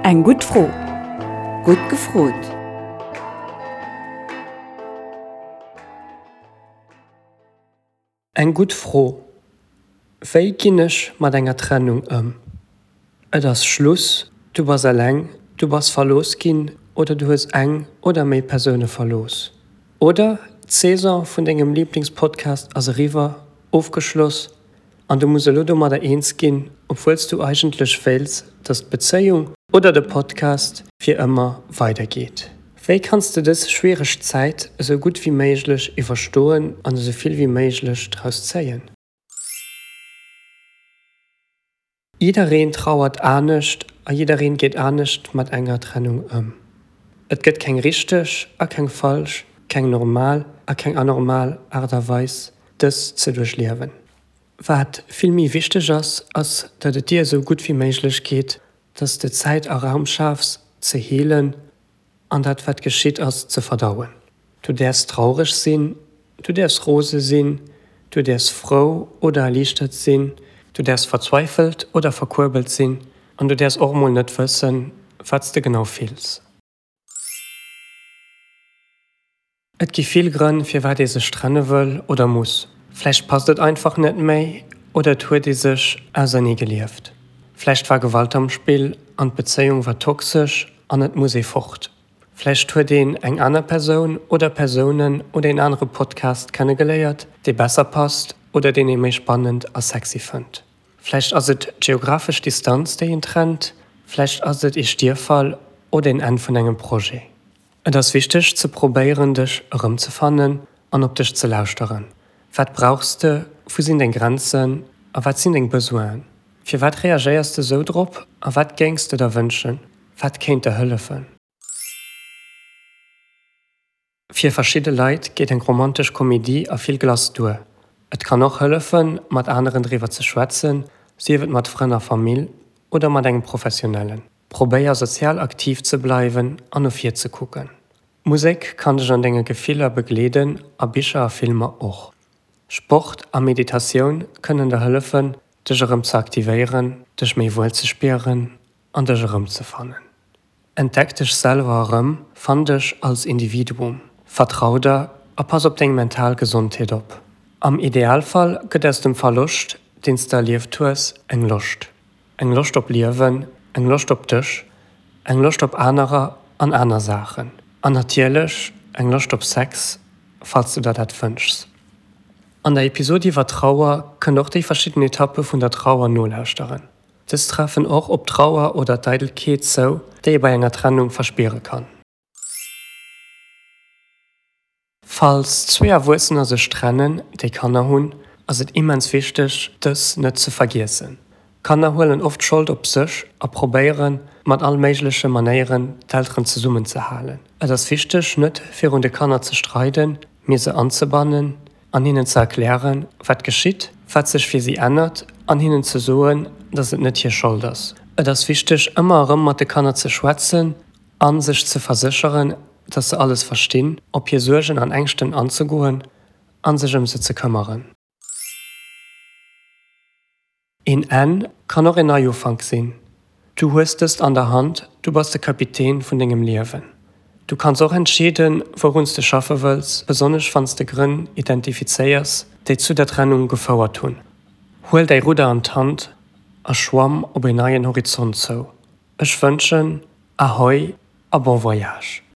Eng gutt Fro. Gutt gefrot! Eng gutt Fro, Wéi ginn ech mat enger Trennung ëm? Et ass Schluss, du bass eleng, du bass verlooss ginn oder du hues eng oder méi Persoune verlooss. Oder d'Saison vun dengem Liblingspodcast ass eriwwer, ofgeschloss an du muss elo domadder eens ginn, obwuel s du eigentlech wéilts, dass d'Bezéiung oder de Podcast fir ëmmer weidergeet. Wéi kanns de dës schwiereg Zäit esou gutt wéi méiglech iwwerstoen an esou vill wéi méiglech draus zéien? Jiddereen trauert anescht a jiddereen geet anescht mat enger Trennung ëm. Et gëtt keng richteg a keng falsch, keng normal a keng anormal Aart a Weis, dës ze duerchliewen. Wat vill méi wichteg ass, ass datt et dir esou gutt wéi méiglech geet, datt s de Zäit a Raum schafs ze heelen an dat wat geschitt ass ze verdauen. Du däerfs traureg sinn, du däerfs rose sinn, du däerfs frou oder erliichtert sinn, du däerfs verzweifelt oder verkuerbelt sinn an du däerfs och mol net wëssen, wat s de genau fills. Et gi vill Grënn, firwat ee sech trenne wëll oder muss. Vläicht passt et einfach net méi oder et huet ee sech ausernee gelieft. Vläicht war Gewalt am Spill an d'Bezéiung war toxesch an et muss ee fort. Vläicht huet een eng aner Persoun oder Persounen oder een anere Podcast kennegeléiert, dee besser passt oder deen ee méi spannend a sexy fënnt. Vläicht ass et d'geographesch Distanz, déi een trennt, vläicht ass et ee Stierffall oder een Enn vun engem Projet. Et ass wichteg ze probéieren dech erëmzefannen an op dech ze lauschteren. Wat brauchs de, wou sinn deng Grenzen a wat sinn deng Besoinen? Firwat reagéiers de sou drop a wat géings de der wënschen? Wat kéint der hëllefen? Fir verschidde Leit geet eng romantesch Komedie a vill Glace duer. Et kann och hëllefen, mat aneren driwwer ze schwätzen, sief et mat Frënn a Famill oder mat engem Professionellen. Probéier sozial aktiv ze bleiwen an no vir ze kucken. Musek kann dech an denge Gefiller begleeden a Bicher a Filmer och. Sport a Meditatioun kënnen der hëllefen, dech erëm ze aktivéieren, dech méi wuel ze spieren an dech erëmzefannen. Entdeck dech selwer erëm, fann dech als Individuum, vertrau der a pass op deng mental Gesondheet op. Am Idealfall gëtt aus dem Verloscht, deen s de erlieft hues, eng Loscht. Eng Loscht op Liewen, eng Loscht op dech, eng Loscht op anerer an aner Saachen. An natierlech eng Loscht op Sex, falls du der dat wënschs. An der Episod iwwer Trauer kënnt och déi verschidden Etappe vun der Trauer nolauschteren. Dës treffen och op d'Trauer oder d'Eidelkeet zou, déi ee bei enger Trennung verspiere kann. Falls zwee Erwuessener sech trennen, déi Kanner hunn, ass et immens wichteg, dës net ze vergiessen. Kanner huelen oft d'Schold op sech a probéieren, mat all méigleche Manéieren d'Elteren zesummen ze halen. Et ass wichteg, net virun de Kanner ze streiden, mee se anzebannen an hinnen ze erklären, wat geschitt, wat sech fir si ännert an hinnen ze soen, dass et net hir Schold ass. Et ass wichteg, ëmmer erëm mat de Kanner ze schwätzen a sech ze versécheren, dass se alles verstinn, op hir Suergen an Ängschten anzegoen a sech ëm se ze këmmeren. Een Enn kann och een Neiufank sinn. Du hues dëst an der Hand, du bass de Kapitän vun dengem Liewen. Du kanns och entscheeden, wourun s de schaffe wëlls, besonnesch wann s de Grënn identifizéiers, déi zu der Trennung gefouert hunn. Huel däi Rudder an d'Hand a schwamm op een neien Horizont zou. Ech wënschen Ahoi a bon voyage!